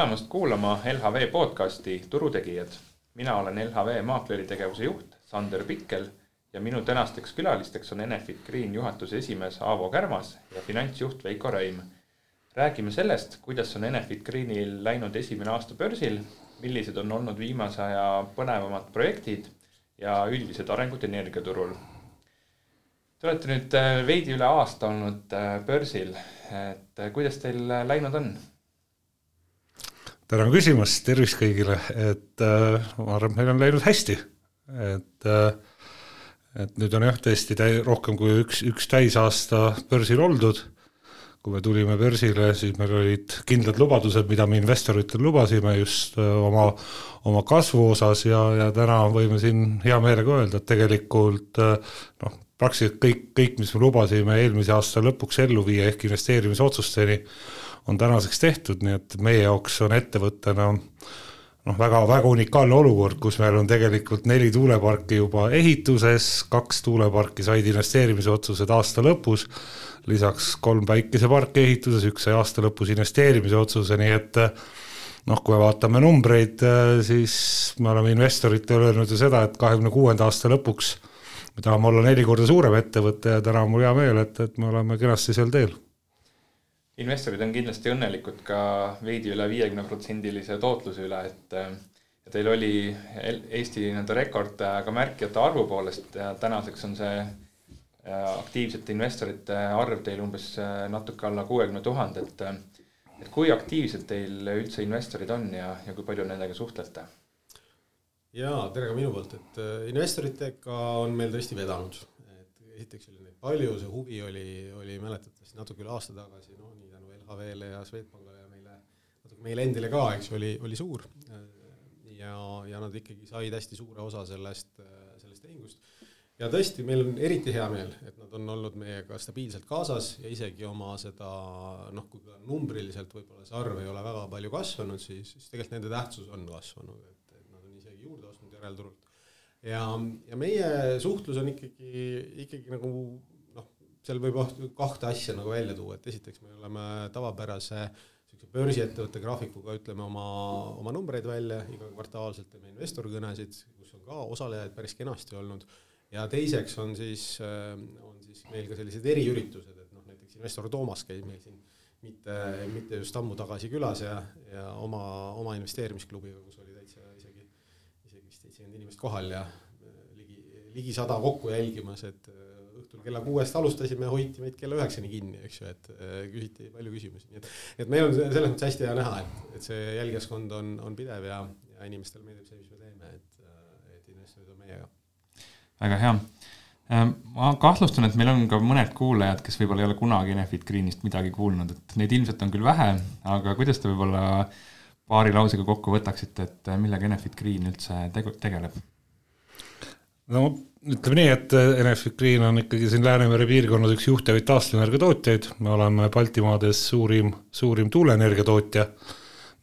tulemast kuulama LHV podcasti Turutegijad. Mina olen LHV maakleri tegevuse juht Sander Pikkel ja minu tänasteks külalisteks on Enefit Green juhatuse esimees Aavo Kärmas ja finantsjuht Veiko Reim. Räägime sellest, kuidas on Enefit Greenil läinud esimene aasta börsil, millised on olnud viimase aja põnevamad projektid ja üldised arengud energiaturul. Te olete nüüd veidi üle aasta olnud börsil, et kuidas teil läinud on? Tänan küsimast, tervist kõigile, et ma arvan, meil on läinud hästi, et nüüd on tõesti rohkem kui üks täisaasta börsil oldud. Kui me tulime börsile, siis meil olid kindlad lubadused, mida me investoritel lubasime just oma kasvu osas ja täna võime siin hea meelega öelda, et tegelikult praktiliselt kõik, mis me lubasime eelmise aasta lõpuks ellu viia ehk investeerimisotsusteni, on tänaseks tehtud, nii et meie jaoks on ettevõttena väga unikaalne olukord, kus meil on tegelikult 4 tuuleparki juba ehituses, 2 tuuleparki said investeerimisotsused aasta lõpus, lisaks 3 päikeseparki ehituses, 1 sai aasta lõpus investeerimise otsuse, nii et kui me vaatame numbreid, siis me oleme investoritele öelnud ju seda, et 26. aasta lõpuks me tahame olla 4 korda suurem ettevõte ja täna on mul hea meel, et me oleme kenasti seal teel. Investorid on kindlasti õnnelikud ka veidi üle 50% tootluse üle, et teil oli Eesti rekord ka märkijate arvu poolest ja tänaseks on see aktiivsete investorite arv teil umbes natuke alla 60 000, et kui aktiivselt teil üldse investorid on ja kui palju nendega suhtlete? Jaa, tere ka minu poolt, et investoritega on meil tõesti vedanud. Esiteks oli neid palju, see huvi oli mäletatavasti natuke üle aasta tagasi, nii tänu LHV-le ja Swedbankile ja meile endile ka, eks oli suur ja nad ikkagi said hästi suure osa sellest tehingust. Ja tõesti, meil on eriti hea meel, et nad on olnud meiega stabiilselt kaasas ja isegi oma seda, kui numbriliselt võib-olla see arv ei ole väga palju kasvanud, siis tegelikult nende tähtsus on kasvanud, et nad on isegi juurde ostnud järelturult. Ja meie suhtlus on ikkagi seal võib 2 asja välja tuua, et esiteks me oleme tavapärase börsiettevõtte graafikuga ütleme oma numbreid välja iga kvartaalselt, teeme investorkõnesid, kus on ka osalejaid päris kenasti olnud. Ja teiseks on siis meil ka sellised eriüritused, et näiteks investor Toomas käis meil siin mitte just ammu tagasi külas ja oma investeerimisklubiga, kus oli täitsa isegi 70 inimest kohal ja ligi 100 kokku jälgimas, et õhtul kella 6 alustasime ja hoiti meid kella 9 kinni, eks ju, et küsiti palju küsimusi. Nii et meil on selles mõttes hästi hea näha, et see jälgijaskond on pidev ja inimestel meeldib see, mis me teeme, et investorid on meiega. Väga hea. Ma kahtlustan, et meil on ka mõned kuulajad, kes võib-olla ei ole kunagi Enefit Greenist midagi kuulnud, et neid ilmselt on küll vähe, aga kuidas te võib-olla paari lausega kokku võtaksite, et millega Enefit Green üldse tegeleb? Ütleme nii, et Enefit Green on ikkagi siin Läänemere piirkonnas üks juhtivaid taastuvenergiatootjaid. Me oleme Baltimaades suurim tuuleenergiatootja.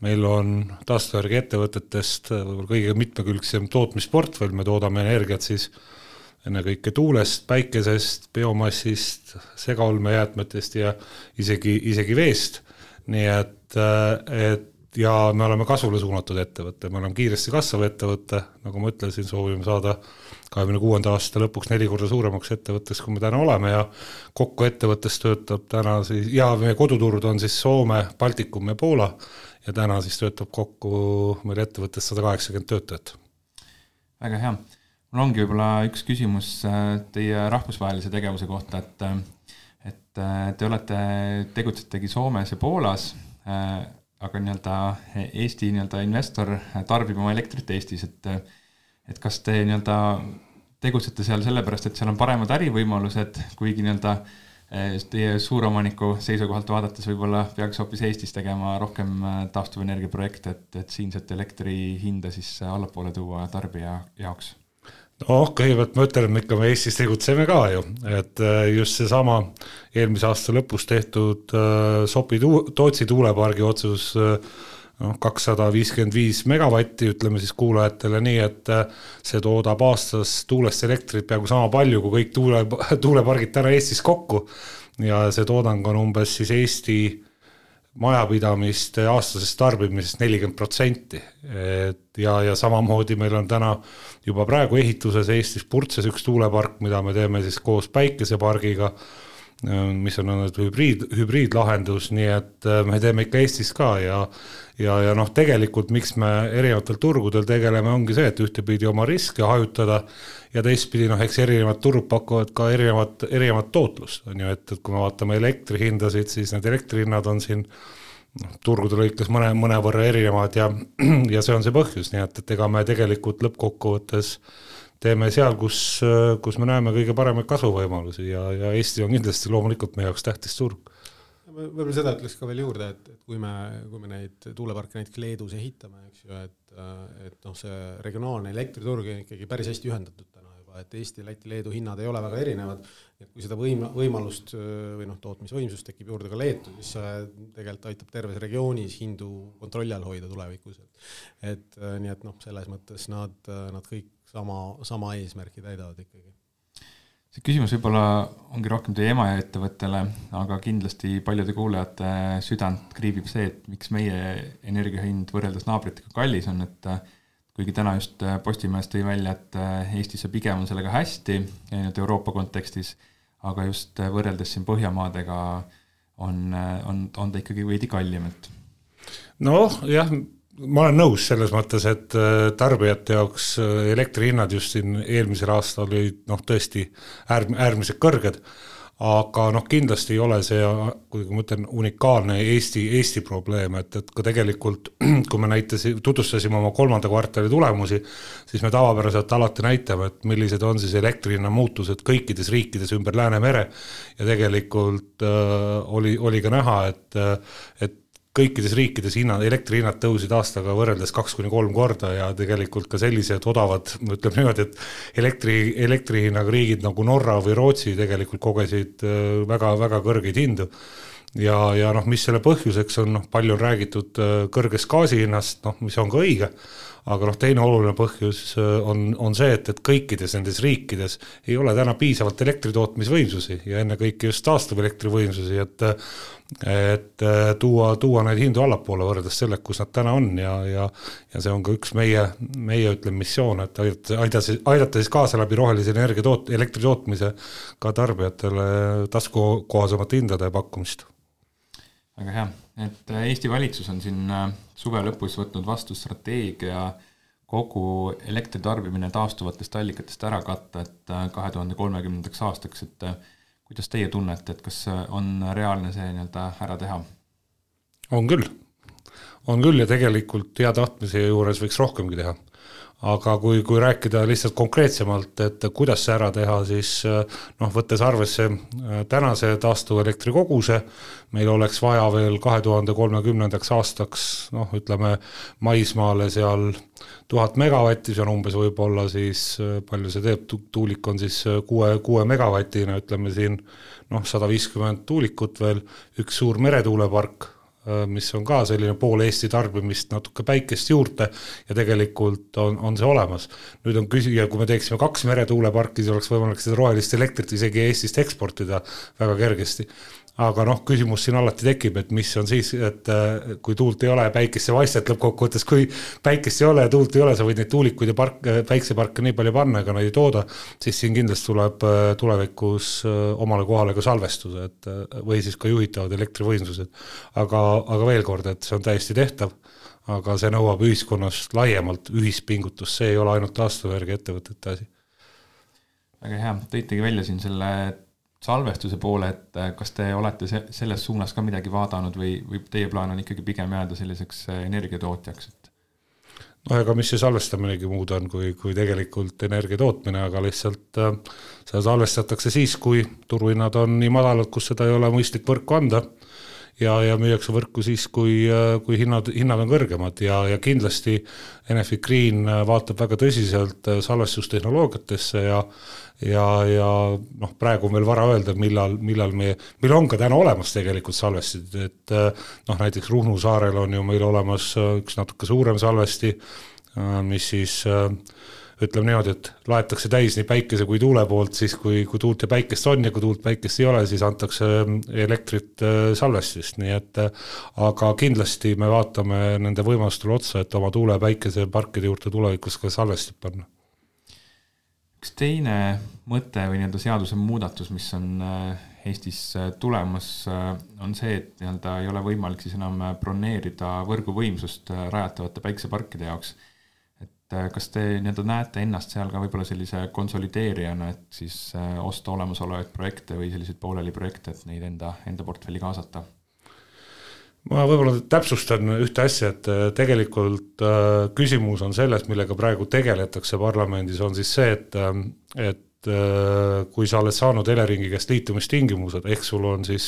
Meil on taastuvenergia ettevõtetest võib-olla kõige mitmekülgsem tootmisportfell. Me toodame energiat siis ennekõike tuulest, päikesest, biomassist, segaolmejäätmetest ja isegi veest. Nii et ja me oleme kasvule suunatud ettevõtte. Me oleme kiiresti kasvav ettevõtte. Nagu ma ütlesin, soovime saada 26. aasta lõpuks 4 korda suuremaks ettevõttes, kui me täna oleme ja kokku ettevõttes töötab täna siis, ja meie koduturud on siis Soome, Baltikum ja Poola ja täna siis töötab kokku meil ettevõttes 180 töötajat. Väga hea. Mul ongi võib-olla üks küsimus teie rahvusvahelise tegevuse kohta, et te tegutsetegi Soomes ja Poolas, aga Eesti investor tarbib oma elektrit Eestis, et kas te tegutsete seal sellepärast, et seal on paremad ärivõimalused, kuigi teie suuromaniku seisukohalt vaadates võib-olla peaks hoopis Eestis tegema rohkem taastuvenergiaprojekte, et siinset elektri hinda siis allapoole tuua tarbija jaoks? Kõigepealt ma ütlen, et me Eestis tegutseme ka ju, et just see sama eelmise aasta lõpus tehtud Sopi-Tootsi tuulepargi otsus 255 megavatti, ütleme siis kuulajatele nii, et see toodab aastas tuulest elektrit peaaegu sama palju kui kõik tuulepargid täna Eestis kokku ja see toodang on umbes siis Eesti majapidamiste aastasest tarbimisest 40%. Ja samamoodi meil on täna juba praegu ehituses Eestis Purtses üks tuulepark, mida me teeme siis koos päikesepargiga, mis on hübriidlahendus, nii et me teeme ikka Eestis ka ja noh, tegelikult miks me erinevatel turgudel tegeleme, ongi see, et ühtepidi oma riske hajutada ja teistpidi, noh, eks erinevad turud pakuvad ka erinevat tootlust, on ju, et kui me vaatame elektrihindasid, siis need elektrihinnad on siin turgude lõikes mõnevõrra erinevad ja see on see põhjus, nii et ega me tegelikult lõppkokkuvõttes teeme seal, kus me näeme kõige paremaid kasvuvõimalusi ja Eesti on kindlasti loomulikult meie jaoks tähtis turg. Võib-olla seda ütleks ka veel juurde, et kui me neid tuuleparke näiteks Leedus ehitame, eks ju, et noh, see regionaalne elektriturg on ikkagi päris hästi ühendatud täna juba, et Eesti, Läti, Leedu hinnad ei ole väga erinevad, et kui seda võimalust või noh, tootmisvõimsust tekib juurde ka Leetu, siis see tegelikult aitab terves regioonis hindu kontrolli all hoida tulevikus. Et nii et noh, selles mõttes nad kõik sama eesmärki täidavad ikkagi. See küsimus võib-olla ongi rohkem teie ema ja ettevõttele, aga kindlasti paljude kuulajate südant kriibib see, et miks meie energiahind võrreldes naabritega kallis on, et kuigi täna just Postimees tõi välja, et Eestis pigem on sellega hästi Euroopa kontekstis, aga just võrreldes siin Põhjamaadega on ta ikkagi veidi kallim. Noh, jah, ma olen nõus selles mõttes, et tarbijate jaoks elektrihinnad just siin eelmisel aastal olid tõesti äärmiselt kõrged, aga kindlasti ei ole see, kui ma ütlen, unikaalne Eesti probleem, et ka tegelikult, kui me tutvustasime oma 3. kvartali tulemusi, siis me tavapäraselt alati näitame, et millised on siis elektrihinna muutused kõikides riikides ümber Läänemere ja tegelikult oli ka näha, et kõikides riikides elektrihinnad tõusid aastaga võrreldes 2-3 korda ja tegelikult ka sellised odavad, ütleme niimoodi, et elektrihinnaga riigid nagu Norra või Rootsi tegelikult kogesid väga kõrgeid hindu. Ja mis selle põhjuseks on, palju on räägitud kõrgest gaasihinnast, mis on ka õige, aga teine oluline põhjus on see, et kõikides nendes riikides ei ole täna piisavalt elektritootmisvõimsusi ja ennekõike just taastuv elektrivõimsusi, et tuua neid hindu allapoole võrreldes selle, kus nad täna on ja see on ka üks meie ütleme missioon, et aidata siis kaasa läbi rohelise elektri tootmise ka tarbijatele taskukohasemate hindade pakkumist. Väga hea, et Eesti valitsus on siin suve lõpus võtnud vastu strateegia kogu elektritarbimine taastuvatest allikatest ära katta, et 2030. aastaks, et kuidas teie tunnete, et kas on reaalne see ära teha? On küll ja tegelikult hea tahtmise juures võiks rohkemgi teha. Aga kui rääkida lihtsalt konkreetsemalt, et kuidas see ära teha, siis võttes arvesse tänase taastuva elektri koguse, meil oleks vaja veel 2030. aastaks, ütleme maismaale seal 1000 megavatti, see on umbes võib-olla siis, palju see teeb, tuulik on siis 6 megavatina, ütleme siin 150 tuulikut veel, üks suur meretuulepark, mis on ka selline pool Eesti tarbimist natuke päikest juurde ja tegelikult on see olemas. Nüüd on küsija, kui me teeksime 2 meretuuleparki, siis oleks võimalik seda rohelist elektrit isegi Eestist eksportida väga kergesti. Aga küsimus siin alati tekib, et mis on siis, et kui tuult ei ole ja päikest ei vaista, et lõppkokkuvõttes, kui päikest ei ole ja tuult ei ole, sa võid neid tuulikuid ja päikseparke nii palju panna, ega neid ei tooda, siis siin kindlasti tuleb tulevikus omale kohale ka salvestuse, või siis ka juhitavad elektrivõimsused. Aga veel kord, et see on täiesti tehtav, aga see nõuab ühiskonnast laiemalt ühispingutust, see ei ole ainult taastuvenergia ettevõtete asi. Väga hea, tõitegi välja siin selle salvestuse poole, et kas te olete selles suunas ka midagi vaadanud või teie plaan on ikkagi pigem jääda selliseks energiatootjaks? Ega mis see salvestaminegi muud on kui tegelikult energia tootmine, aga lihtsalt seda salvestatakse siis, kui turuhinnad on nii madalad, kus seda ei ole mõistlik võrku anda ja müüakse võrku siis, kui hinnad on kõrgemad ja kindlasti Enefit Green vaatab väga tõsiselt salvestustehnoloogiatesse ja praegu on veel vara öelda, millal meil on ka täna olemas tegelikult salvestid, et näiteks Ruhnu saarel on ju meil olemas üks natuke suurem salvesti, mis siis ütleme niimoodi, et laetakse täis nii päikese kui tuule poolt, siis kui tuult ja päikest on ja kui tuult päikest ei ole, siis antakse elektrit salvestist, nii et aga kindlasti me vaatame nende võimalustele otsa, et oma tuule- ja päikeseparkide juurde tulevikus ka salvestid panna. Üks teine mõte või nii-öelda seaduse muudatus, mis on Eestis tulemas, on see, et nii-öelda ei ole võimalik siis enam broneerida võrguvõimsust rajatavate päikeseparkide jaoks. Et kas te nii-öelda näete ennast seal ka võib-olla sellise konsolideerijana, et siis osta olemasolevaid projekte või selliseid pooleli projekte, et neid enda portfelli kaasata? Ma võib-olla täpsustan ühte asja, et tegelikult küsimus on selles, millega praegu tegeletakse parlamendis, on siis see, et kui sa oled saanud Eleringi käest liitumistingimused, ehk sul on siis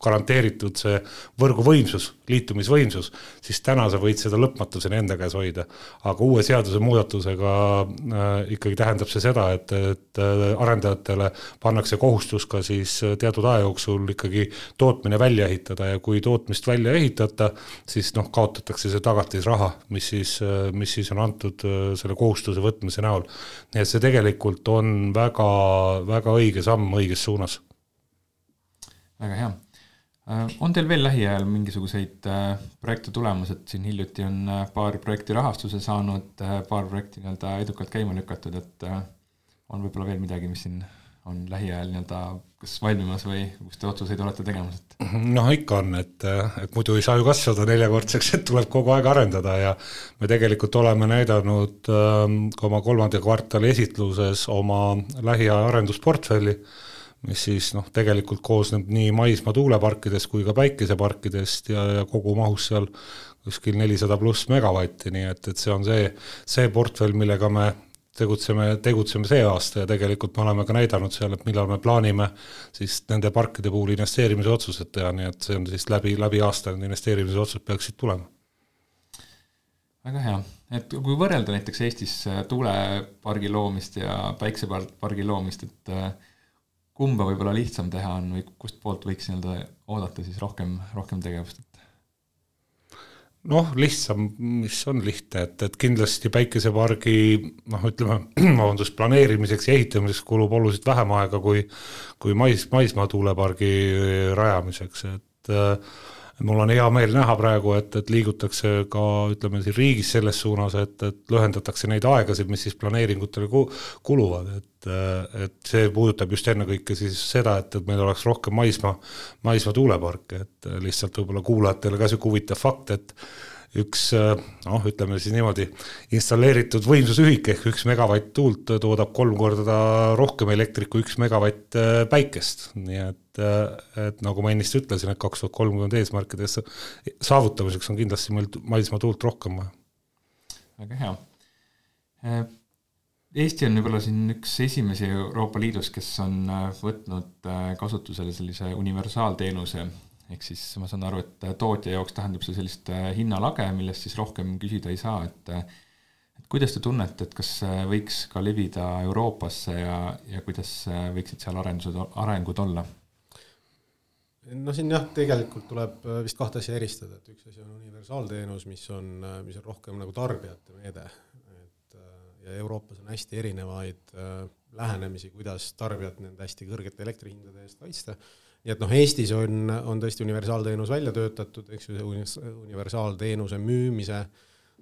garanteeritud see võrguvõimsus, liitumisvõimsus, siis täna sa võid seda lõpmatuseni enda käes hoida. Aga uue seaduse muudatusega ikkagi tähendab see seda, et arendajatele pannakse kohustus ka siis teatud aja jooksul ikkagi tootmine välja ehitada ja kui tootmist välja ehitata, siis kaotatakse see tagatisraha, mis siis on antud selle kohustuse võtmise näol. Nii et see tegelikult on väga õige samm õiges suunas. Väga hea. On teil veel lähiajal mingisuguseid projekte tulemas, et siin hiljuti on paar projekti rahastuse saanud, paar projekti nii-öelda edukalt käima lükatud, et on võib-olla veel midagi, mis siin on lähiajal nii-öelda kas valmimas või kus te otsuseid olete tegemas? Ikka on, et muidu ei saa ju kasvada 4-kordseks, et tuleb kogu aeg arendada ja me tegelikult oleme näidanud oma 3. kvartali esitluses oma lähiaja arendusportfelli, mis siis tegelikult koosneb nii maismaa tuuleparkidest kui ka päikeseparkidest ja kogu mahus seal kuskil 400+ megavatti, nii et see on see portfell, millega me tegutseme see aasta ja tegelikult me oleme ka näidanud seal, et millal me plaanime siis nende parkide puhul investeerimise otsused teha, nii et see on siis läbi aasta need investeerimise otsused peaksid tulema. Väga hea. Et kui võrrelda näiteks Eestis tuulepargi loomist ja päiksepargi loomist, et kumba võib-olla lihtsam teha on või kust poolt võiks oodata siis rohkem tegevust? Lihtsam, mis on lihtne, et kindlasti päikesepargi planeerimiseks ja ehitamiseks kulub oluliselt vähem aega kui maismaa tuulepargi rajamiseks, et mul on hea meel näha praegu, et liigutakse ka siin riigis selles suunas, et lühendatakse neid aegasid, mis siis planeeringutele kuluvad, et see puudutab just ennekõike siis seda, et meil oleks rohkem maismaa tuuleparke, et lihtsalt võib-olla kuulajatele ka siuke huvitav fakt, et üks, siis niimoodi, installeeritud võimsusühik ehk 1 megavatt tuult toodab 3 korda rohkem elektrit kui 1 megavatt päikest. Nii et nagu ma ennist ütlesin, et 2030 eesmärkides saavutamiseks on kindlasti meil maismaa tuult rohkem vaja. Väga hea. Eesti on võib-olla siin üks esimesi Euroopa Liidus, kes on võtnud kasutusele sellise universaalteenuse. Ehk siis ma saan aru, et tootja jaoks tähendab see sellist hinnalage, millest siis rohkem küsida ei saa. Et kuidas te tunnete, et kas võiks ka levida Euroopasse ja kuidas võiksid seal arengud olla? Siin tegelikult tuleb vist 2 asja eristada, et üks asi on universaalteenus, mis on rohkem nagu tarbijate meede. Ja Euroopas on hästi erinevaid lähenemisi, kuidas tarbijat nende hästi kõrgete elektrihindade eest kaitsta. Nii et Eestis on tõesti universaalteenus välja töötatud, eks universaalteenuse müümise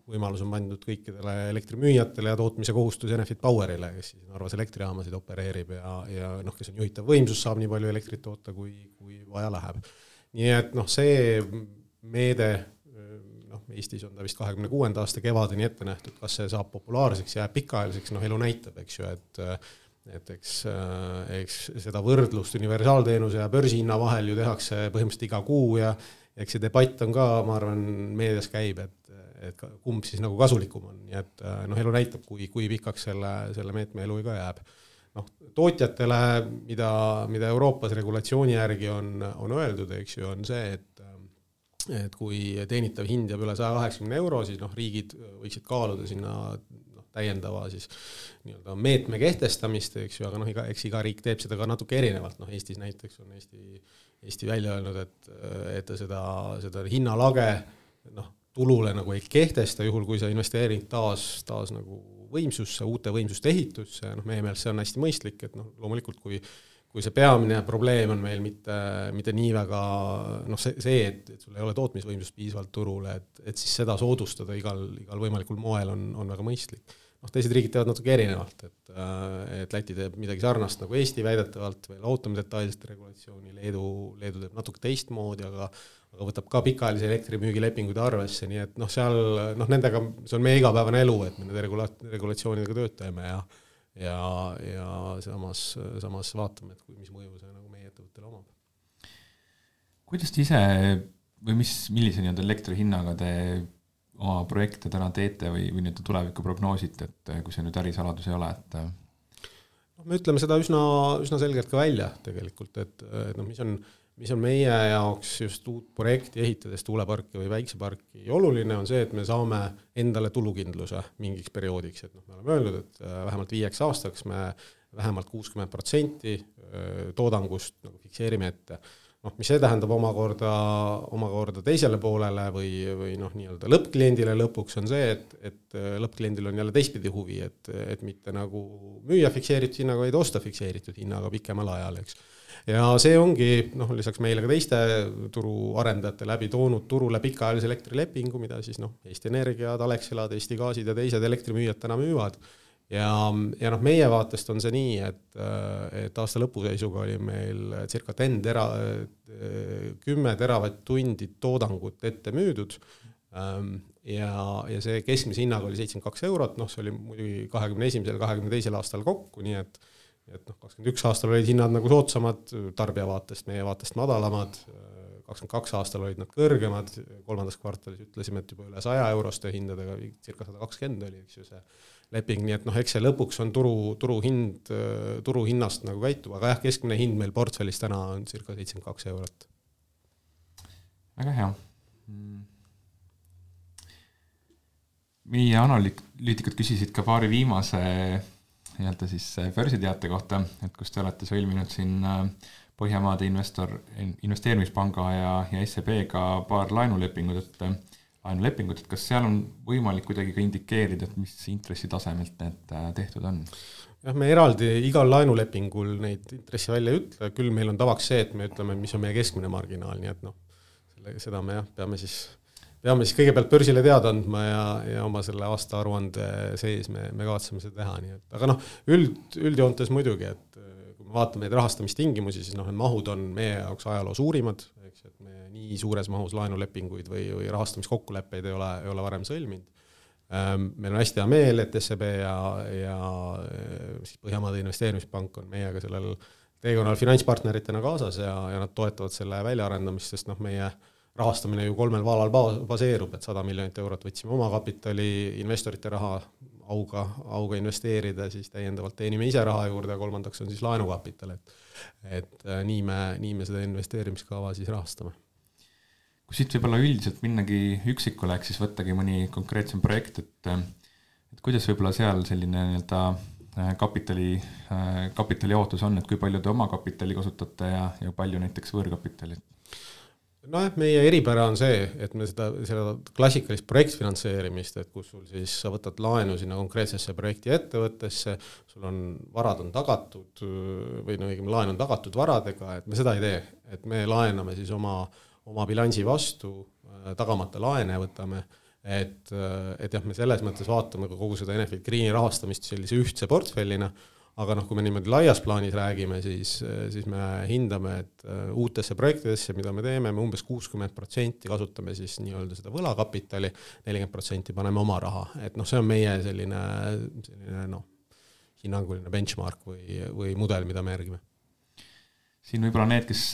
võimalus on pandud kõikidele elektrimüüjatele ja tootmise kohustus Enefit Powerile, kes siis Narvas elektrijaamasid opereerib ja kes on juhitav võimsus, saab nii palju elektrit toota, kui vaja läheb. Nii et see meede, Eestis on ta vist 26. aasta kevadeni ette nähtud, kas see saab populaarseks ja pikaajaliseks, elu näitab, eks ju, et eks seda võrdlust universaalteenuse ja börsihinna vahel ju tehakse põhimõtteliselt iga kuu ja eks see debatt on ka, ma arvan, meedias käib, et kumb siis nagu kasulikum on. Nii et elu näitab, kui pikaks selle meetme elu ka jääb. Tootjatele, mida Euroopas regulatsiooni järgi on öeldud, eks ju, on see, et kui teenitav hind jääb üle 180 €, siis riigid võiksid kaaluda sinna täiendava siis nii-öelda meetme kehtestamist, eks ju, aga eks iga riik teeb seda ka natuke erinevalt. Eestis näiteks on Eesti välja öelnud, et ta seda hinnalage tulule nagu ei kehtesta, juhul kui see investeering taas nagu võimsusse, uute võimsuste ehitusse, meie meelest see on hästi mõistlik, et loomulikult kui see peamine probleem on meil mitte nii väga see, et sul ei ole tootmisvõimsust piisavalt turule, et siis seda soodustada igal võimalikul moel on väga mõistlik. Teised riigid teevad natuke erinevalt, et Läti teeb midagi sarnast nagu Eesti väidetavalt, veel ootame detailset regulatsiooni, Leedu teeb natuke teistmoodi, aga võtab ka pikaajalise elektrimüügilepinguid arvesse, nii et seal nendega, see on meie igapäevane elu, et me nende regulatsioonidega tööd teeme ja samas vaatame, et mis mõju see nagu meie ettevõttele omab. Kuidas te ise või millise elektri hinnaga te oma projekte täna teete või nüüd tulevikku prognoosite, et kui see nüüd ärisaladus ei ole, et me ütleme seda üsna selgelt ka välja tegelikult, et mis on meie jaoks just uut projekti ehitades tuuleparki või väikseparki oluline on see, et me saame endale tulukindluse mingiks perioodiks, et me oleme öelnud, et vähemalt 5 aastaks me vähemalt 60% toodangust fikseerime ette. Mis see tähendab omakorda teisele poolele või nii-öelda lõppkliendile lõpuks on see, et lõppkliendil on jälle teistpidi huvi, et mitte nagu müüa fikseeritud hinnaga, vaid osta fikseeritud hinnaga pikemal ajal, eks. Ja see ongi lisaks meile ka teiste turuarendajate läbi toonud turule pikaajalise elektrilepingu, mida siis Eesti Energiad, Alexelad, Eesti Gaasid ja teised elektrimüüjad täna müüvad. Ja meie vaatest on see nii, et aasta lõpuseisuga oli meil circa 10 teravatt-tundi toodangut ette müüdud ja see keskmise hinnaga oli 72 €, see oli muidugi 21. ja 22. aastal kokku, nii et 21 aastal olid hinnad nagu soodsamad tarbija vaatest, meie vaatest madalamad, 22 aastal olid nad kõrgemad, 3. kvartalis ütlesime, et juba üle 100 euroste hindadega, circa 120 oli, eks ju see leping, nii et eks see lõpuks on turuhinnast nagu käitub, aga keskmine hind meil portfellis täna on circa 72 €. Väga hea. Meie analüütikud küsisid ka paari viimase siis börsiteate kohta, et kus te olete sõlminud siin Põhjamaade investeerimispanga ja SEB-ga paar laenulepingut, et kas seal on võimalik kuidagi ka indikeerida, et mis intressitasemelt need tehtud on? Jah, me eraldi igal laenulepingul neid intressi välja ei ütle, küll meil on tavaks see, et me ütleme, mis on meie keskmine marginaal, nii et seda me peame siis kõigepealt börsile teada andma ja oma selle aasta aruande sees me kavatseme seda teha, nii et aga üldjoontes muidugi, et kui me vaatame neid rahastamistingimusi, siis need mahud on meie jaoks ajaloo suurimad, eks, et me nii suures mahus laenulepinguid või rahastamiskokkuleppeid ei ole varem sõlminud. Meil on hästi hea meel, et SEB ja Põhjamaade investeerimispank on meiega sellel teekonnal finantspartneritena kaasas ja nad toetavad selle väljaarendamist, sest meie rahastamine ju 3 vaalal baseerub, et 100 miljonit eurot võtsime oma kapitali, investorite raha auga investeerida, siis täiendavalt teenime ise raha juurde ja 3. on siis laenukapital, et nii me seda investeerimiskava siis rahastame. Kui siit võib-olla üldiselt minnagi üksikule, ehk siis võttagi mõni konkreetsem projekt, et kuidas võib-olla seal selline kapitali ootus on, et kui palju te oma kapitali kasutate ja palju näiteks võõrkapitali? Meie eripära on see, et me seda klassikalist projektfinantseerimist, et kus sul siis sa võtad laenu sinna konkreetsesse projekti ettevõttesse, sul on varad on tagatud või laen on tagatud varadega, et me seda ei tee, et me laename siis oma bilansi vastu, tagamata laene võtame, et jah, me selles mõttes vaatame ka kogu seda Enefit Greeni rahastamist sellise ühtse portfellina, aga kui me niimoodi laias plaanis räägime, siis me hindame, et uutesse projektidesse, mida me teeme, me umbes 60% kasutame siis nii-öelda seda võlakapitali, 40% paneme oma raha, et see on meie selline hinnanguline benchmark või mudel, mida me järgime. Siin võib-olla need, kes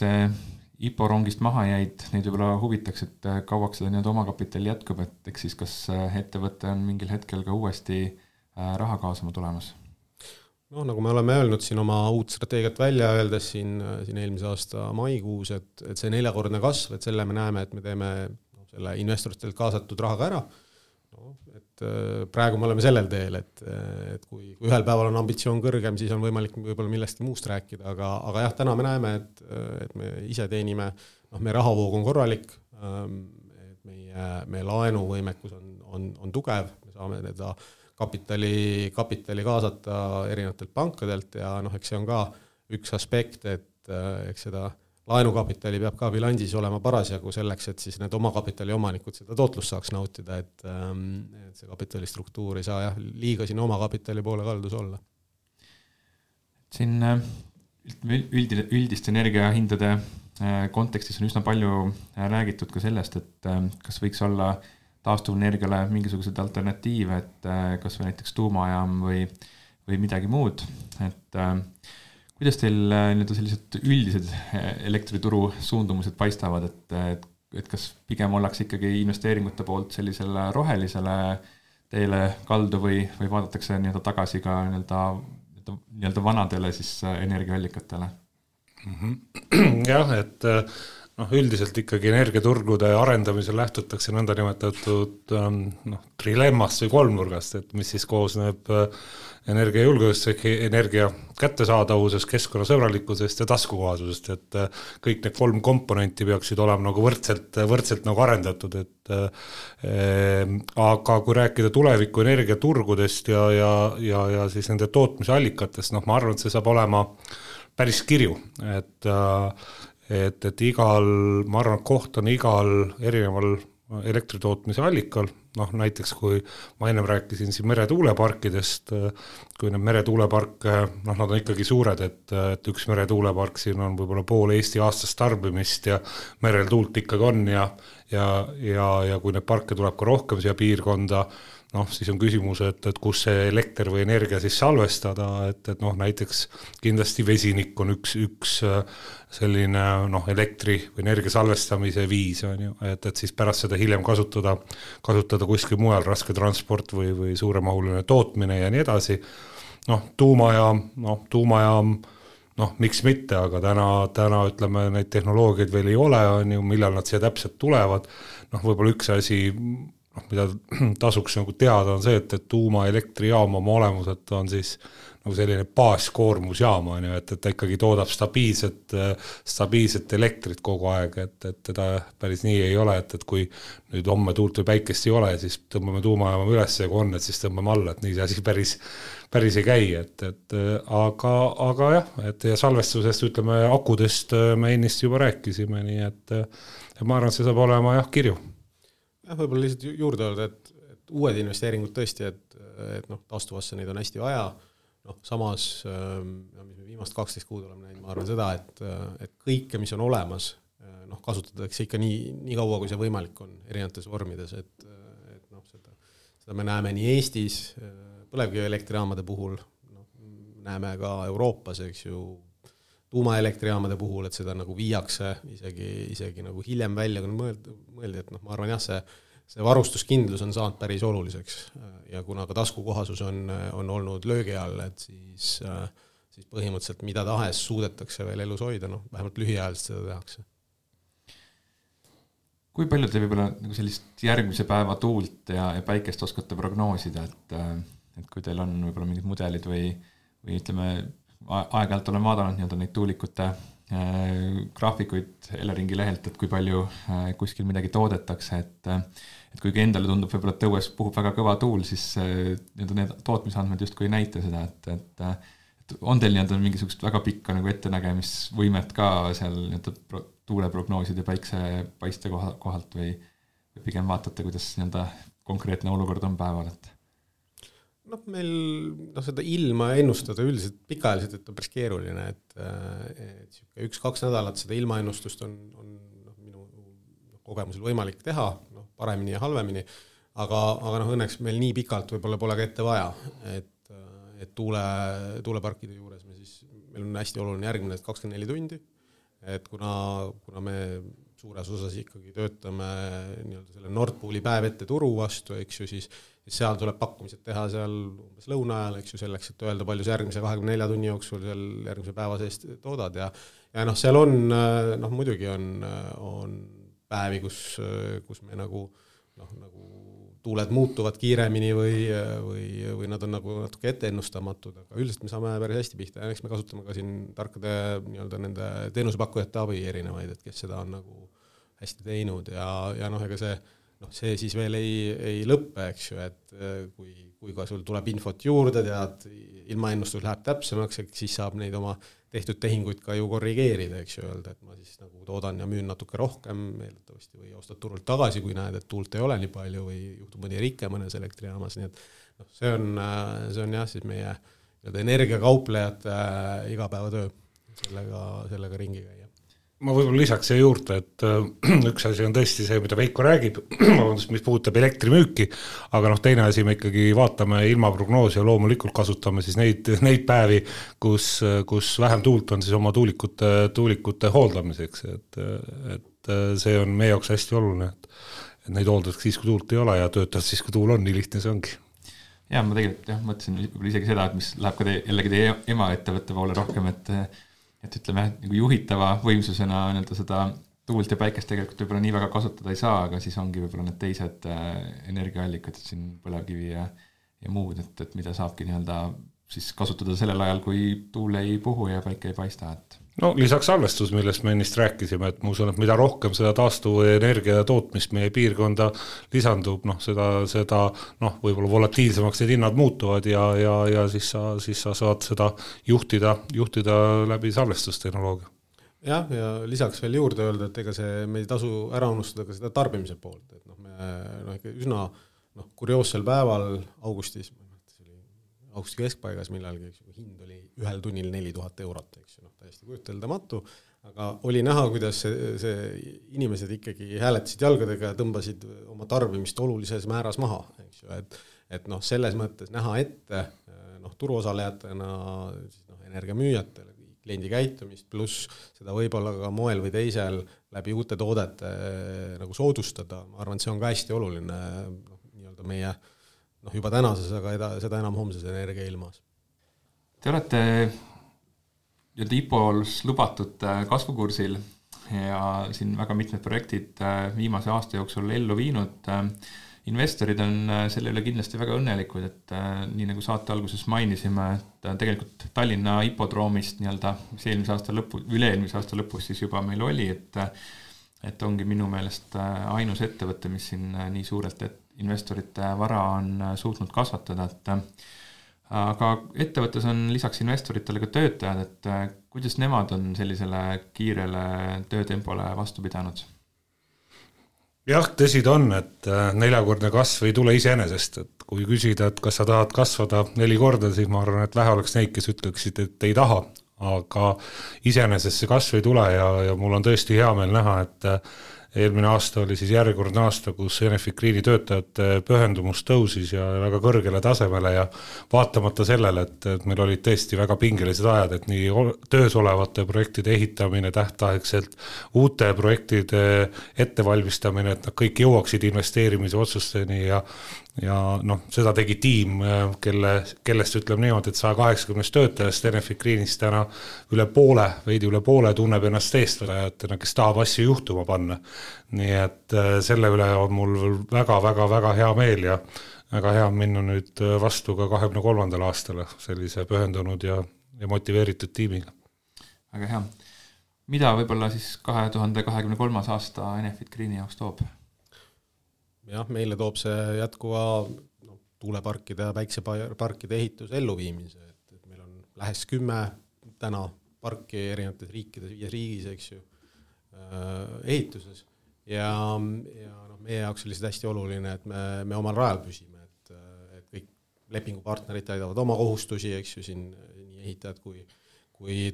IPO rongist maha jäid, neid võib-olla huvitaks, et kauaks seda nii-öelda omakapitali jätkub, et eks siis kas ettevõte on mingil hetkel ka uuesti raha kaasama tulemas? Nagu me oleme öelnud siin oma uut strateegiat välja öeldes siin eelmise aasta maikuus, et see 4-kordne kasv, et selle me näeme, et me teeme selle investoritelt kaasatud rahaga ära. Et praegu me oleme sellel teel, et kui ühel päeval on ambitsioon kõrgem, siis on võimalik võib-olla millestki muust rääkida, aga jah, täna me näeme, et me ise teenime, meie rahavoog on korralik, et meie laenuvõimekus on tugev, me saame teda kapitali kaasata erinevatelt pankadelt ja eks see on ka üks aspekt, et eks seda laenukapitali peab ka bilansis olema parasjagu selleks, et siis need omakapitali omanikud seda tootlust saaks nautida, et see kapitalistruktuur ei saa liiga siin omakapitali poole kaldus olla. Siin üldist energiahindade kontekstis on üsna palju räägitud ka sellest, et kas võiks olla taastuvenergiale mingisuguseid alternatiive, et kas või näiteks tuumajaam või midagi muud, et kuidas teil nii-öelda sellised üldised elektrituru suundumused paistavad, et kas pigem ollakse ikkagi investeeringute poolt sellisele rohelisele teele kaldu või vaadatakse nii-öelda tagasi ka nii-öelda vanadele siis energiaallikatele? Jah, et üldiselt ikkagi energiaturgude arendamisel lähtutakse nõndanimetatud trilemmast või kolmnurgast, et mis siis koosneb energiajulgeolekust, energia kättesaadavusest, keskkonnasõbralikkusest ja taskukohasusest, et kõik need 3 komponenti peaksid olema nagu võrdselt nagu arendatud, et aga kui rääkida tuleviku energiaturgudest ja siis nende tootmise allikatest, ma arvan, et see saab olema päris kirju, et ma arvan, et koht on igal erineval elektritootmise allikal, näiteks kui ma ennem rääkisin siin meretuuleparkidest, kui need meretuuleparke, nad on ikkagi suured, et üks meretuulepark siin on võib-olla pool Eesti aastast tarbimist ja merel tuult ikkagi on ja kui need parke tuleb ka rohkem siia piirkonda, siis on küsimus, et kus see elekter või energia siis salvestada, et näiteks kindlasti vesinik on üks selline elektri või energia salvestamise viis, on ju, et siis pärast seda hiljem kasutada kuskil mujal, raske transport või suuremahuline tootmine ja nii edasi. Tuumajaam, miks mitte, aga täna ütleme, neid tehnoloogiaid veel ei ole, on ju, millal nad siia täpselt tulevad. Võib-olla üks asi, mida tasuks nagu teada on see, et tuumaelektrijaam oma olemuselt on siis nagu selline baaskoormusjaam, et ta ikkagi toodab stabiilset elektrit kogu aeg, et teda päris nii ei ole, et kui nüüd homme tuult või päikest ei ole, siis tõmbame tuumajaama üles ja kui on, et siis tõmbame alla, et nii see asi päris ei käi, aga jah, et ja salvestusest, ütleme, akudest me ennist juba rääkisime, nii et ma arvan, et see saab olema kirju. Võib-olla lihtsalt juurde öelda, et uued investeeringud tõesti, et taastuvasse neid on hästi vaja. Samas, mis me viimast 12 kuud oleme näinud, ma arvan seda, et kõike, mis on olemas, kasutatakse ikka nii kaua, kui see võimalik on erinevates vormides, et seda me näeme nii Eestis põlevkivielektrijaamade puhul, näeme ka Euroopas, eks ju, tuumaelektrijaamade puhul, et seda nagu viiakse isegi nagu hiljem välja, kui mõeldi, et ma arvan see varustuskindlus on saanud päris oluliseks ja kuna ka taskukohasus on olnud löögi all, et siis põhimõtteliselt mida tahes suudetakse veel elus hoida, vähemalt lühiajaliselt seda tehakse. Kui palju te võib-olla nagu sellist järgmise päeva tuult ja päikest oskate prognoosida, et kui teil on võib-olla mingid mudelid või ütleme, aeg-ajalt olen vaadanud nii-öelda neid tuulikute graafikuid Eleringi lehelt, et kui palju kuskil midagi toodetakse, et kuigi endale tundub võib-olla, et õues puhub väga kõva tuul, siis need tootmisandmed justkui ei näita seda, et on teil nii-öelda mingisugust väga pikka nagu ettenägemisvõimet ka seal nii-öelda tuuleprognooside päiksepaiste kohalt või pigem vaatate, kuidas nii-öelda konkreetne olukord on päeval, et meil seda ilma ennustada üldiselt pikaajaliselt, et on päris keeruline, et 1-2 nädalat seda ilmaennustust on minu kogemusel võimalik teha, paremini ja halvemini, aga õnneks meil nii pikalt võib-olla pole ka ette vaja, et tuuleparkide juures meil on hästi oluline järgmine 24 tundi, et kuna me suures osas ikkagi töötame nii-öelda selle Nord Pooli päev ette turu vastu, eks ju, siis seal tuleb pakkumised teha seal umbes lõuna ajal, eks ju, selleks, et öelda, palju see järgmise 24 tunni jooksul seal järgmise päeva seest toodad ja seal on, muidugi on päevi, kus me nagu tuuled muutuvad kiiremini või nad on nagu natuke etteennustamatud, aga üldiselt me saame päris hästi pihta ja eks me kasutame ka siin tarkade nii-öelda nende teenusepakkujate abi erinevaid, et kes seda on nagu hästi teinud ja ega see see siis veel ei lõppe, eks ju, et kui ka sul tuleb infot juurde, tead, ilmaennustus läheb täpsemaks, siis saab neid oma tehtud tehinguid ka ju korrigeerida, eks ju, öelda, et ma siis nagu toodan ja müün natuke rohkem eeldatavasti või ostad turult tagasi, kui näed, et tuult ei ole nii palju või juhtub mõni rike mõnes elektrijaamas, nii et see on jah, siis meie energiakauplejate igapäevatöö sellega ringi käia. Ma võib-olla lisaks siia juurde, et üks asi on tõesti see, mida Veiko räägib, mis puudutab elektrimüüki, aga teine asi me ikkagi vaatame ilmaprognoosi ja loomulikult kasutame siis neid päevi, kus vähem tuult on siis oma tuulikute hooldamiseks, et see on meie jaoks hästi oluline, et neid hooldaks siis, kui tuult ei ole ja töötavad siis, kui tuul on, nii lihtne see ongi. Ja ma tegelikult mõtlesin isegi seda, et mis läheb ka jällegi teie ema ettevõtte poole rohkem, et ütleme, nagu juhitava võimsusena seda tuult ja päikest tegelikult võib-olla nii väga kasutada ei saa, aga siis ongi võib-olla need teised energiaallikad, et siin põlevkivi ja muud, et mida saabki siis kasutada sellel ajal, kui tuul ei puhu ja päike ei paista. No lisaks salvestus, millest me ennist rääkisime, et ma usun, et mida rohkem seda taastuvenergia tootmist meie piirkonda lisandub, seda võib-olla volatiilsemaks need hinnad muutuvad ja siis sa saad seda juhtida läbi salvestustehnoloogia. Jah, ja lisaks veel juurde öelda, et ega me ei tasu ära unustada ka seda tarbimise poolt, et me ikka üsna kurioossel päeval augustis augusti keskpaigas millalgi, hind oli 1 tunnil 4000 €, eks ju, täiesti kujuteldamatu, aga oli näha, kuidas see inimesed ikkagi hääletasid jalgadega ja tõmbasid oma tarbimist olulises määras maha, eks ju, et selles mõttes näha ette turuosalejatena energiamüüjatele, kliendi käitumist, pluss seda võib-olla ka moel või teisel läbi uute toodete nagu soodustada, ma arvan, et see on ka hästi oluline meie juba tänases, aga seda enam homses energiailmas. Te olete IPO-s lubatud kasvukursil ja siin väga mitmed projektid viimase aasta jooksul ellu viinud. Investorid on selle üle kindlasti väga õnnelikud, et nii nagu saate alguses mainisime, et tegelikult Tallinna hipodroomist mis üle-eelmise aasta lõpus siis juba meil oli, et ongi minu meelest ainus ettevõte, mis siin nii suurelt investorite vara on suutnud kasvatada, aga ettevõttes on lisaks investoritele ka töötajad, et kuidas nemad on sellisele kiirele töötempole vastu pidanud? Jah, tõsi ta on, et 4-kordne kasv ei tule iseenesest, et kui küsida, et kas sa tahad kasvada 4 korda, siis ma arvan, et vähe oleks neid, kes ütleksid, et ei taha, aga iseenesest see kasv ei tule ja mul on tõesti hea meel näha, et eelmine aasta oli siis järjekordne aasta, kus Enefit Greeni töötajate pühendumus tõusis ja väga kõrgele tasemele ja vaatamata sellele, et meil olid tõesti väga pingelised ajad, et nii töös olevate projektide ehitamine tähtaegselt, uute projektide ettevalmistamine, et nad kõik jõuaksid investeerimise otsusteni ja seda tegi tiim, kellest ütleme niimoodi, et 180 töötajast Enefit Greenist täna veidi üle poole tunneb ennast eestvajatena, kes tahab asju juhtuma panna. Nii et selle üle on mul väga hea meel ja väga hea minna nüüd vastu ka 2023. aastale sellise pühendunud ja motiveeritud tiimiga. Väga hea. Mida võib-olla siis 2023. aasta Enefit Greeni jaoks toob? Jah, meile toob see jätkuva tuuleparkide ja päikseparkide ehitus elluviimise, et meil on lähes 10 täna parki erinevates riikides, 5 riigis, eks ju, ehituses ja meie jaoks oli see hästi oluline, et me omal rajal püsime, et kõik lepingupartnerid täidavad oma kohustusi, eks ju, siin nii ehitajad kui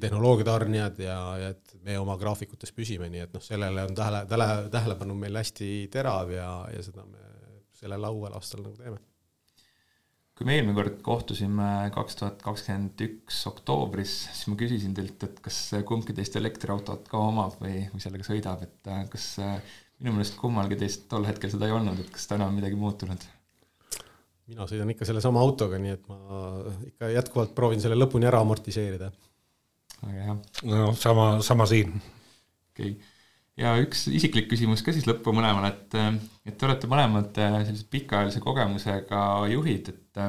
tehnoloogiatarnijad ja et me oma graafikutes püsime, nii et sellele on tähelepanu meil hästi terav ja seda me sellel uuel aastal nagu teeme. Kui me eelmine kord kohtusime 2021 oktoobris, siis ma küsisin teilt, et kas kumbki teist elektriautot ka omab või sellega sõidab, et kas minu meelest kummalgi teist tol hetkel seda ei olnud, et kas täna on midagi muutunud? Mina sõidan ikka selle sama autoga, nii et ma ikka jätkuvalt proovin selle lõpuni ära amortiseerida. Väga hea. No, sama siin. Okay. Ja üks isiklik küsimus ka siis lõppu mõlemale, et te olete mõlemad sellised pikaajalise kogemusega juhid, et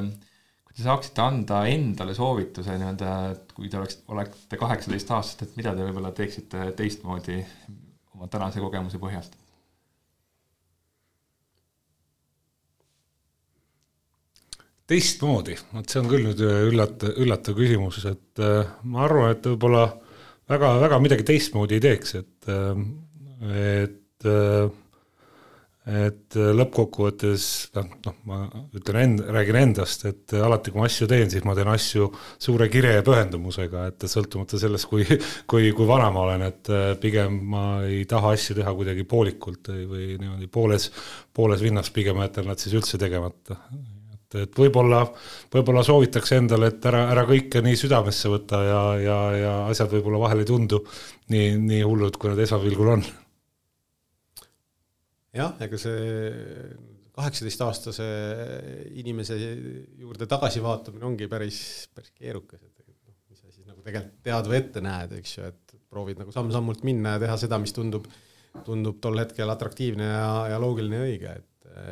kui te saaksite anda endale soovituse, et kui te olete 18 aastat, et mida te võib-olla teeksite teistmoodi oma tänase kogemuse põhjalt? teistmoodi, see on küll nüüd üllatav küsimus, et ma arvan, et võib-olla väga midagi teistmoodi ei teeks, et lõppkokkuvõttes, ma räägin endast, et alati kui ma asju teen, siis ma teen asju suure kire ja pühendumusega, et sõltumata sellest, kui vana ma olen, et pigem ma ei taha asju teha kuidagi poolikult või niimoodi pooles vinnas, pigem jätan nad siis üldse tegemata. Et võib-olla soovitakse endale, et ära kõike nii südamesse võtta ja asjad võib-olla vahel ei tundu nii hullud, kui nad esmapilgul on. Jah, ega see 18-aastase inimese juurde tagasi vaatamine ongi päris keerukas, et mis sa siis nagu tegelikult tead või ette näed, eks ju, et proovid nagu samm-sammult minna ja teha seda, mis tundub tol hetkel atraktiivne ja loogiline ja õige,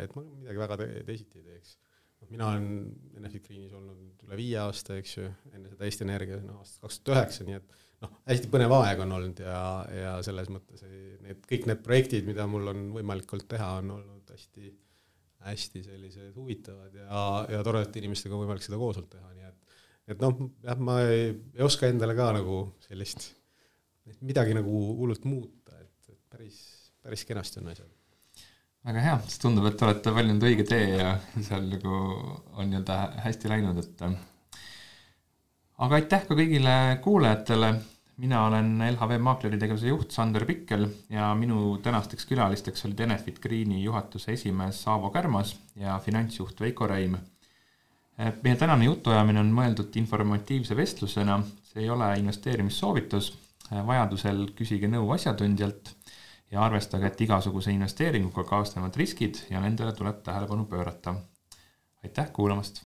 et ma midagi väga teisiti ei teeks. Mina olen Enefit Greenis olnud üle 5 aasta, eks ju, enne seda Eesti Energia aastast 2009, nii et hästi põnev aeg on olnud ja selles mõttes kõik need projektid, mida mul on võimalik olnud teha, on olnud hästi sellised huvitavad ja toredate inimestega on võimalik seda koos olnud teha, nii et jah, ma ei oska endale ka nagu sellist midagi nagu hullult muuta, et päris kenasti on asjad. Väga hea, siis tundub, et olete valinud õige tee ja seal nagu on nii-öelda hästi läinud, et aga aitäh ka kõigile kuulajatele. Mina olen LHV Maakleri tegevuse juht Sander Pikkel ja minu tänasteks külalisteks olid Enefit Greeni juhatuse esimees Aavo Kärmas ja finantsjuht Veiko Reim. Meie tänane jutuajamine on mõeldud informatiivse vestlusena, see ei ole investeerimissoovitus, vajadusel küsige nõu asjatundjalt ja arvestage, et igasuguse investeeringuga kaasnevad riskid ja nendele tuleb tähelepanu pöörata. Aitäh kuulamast!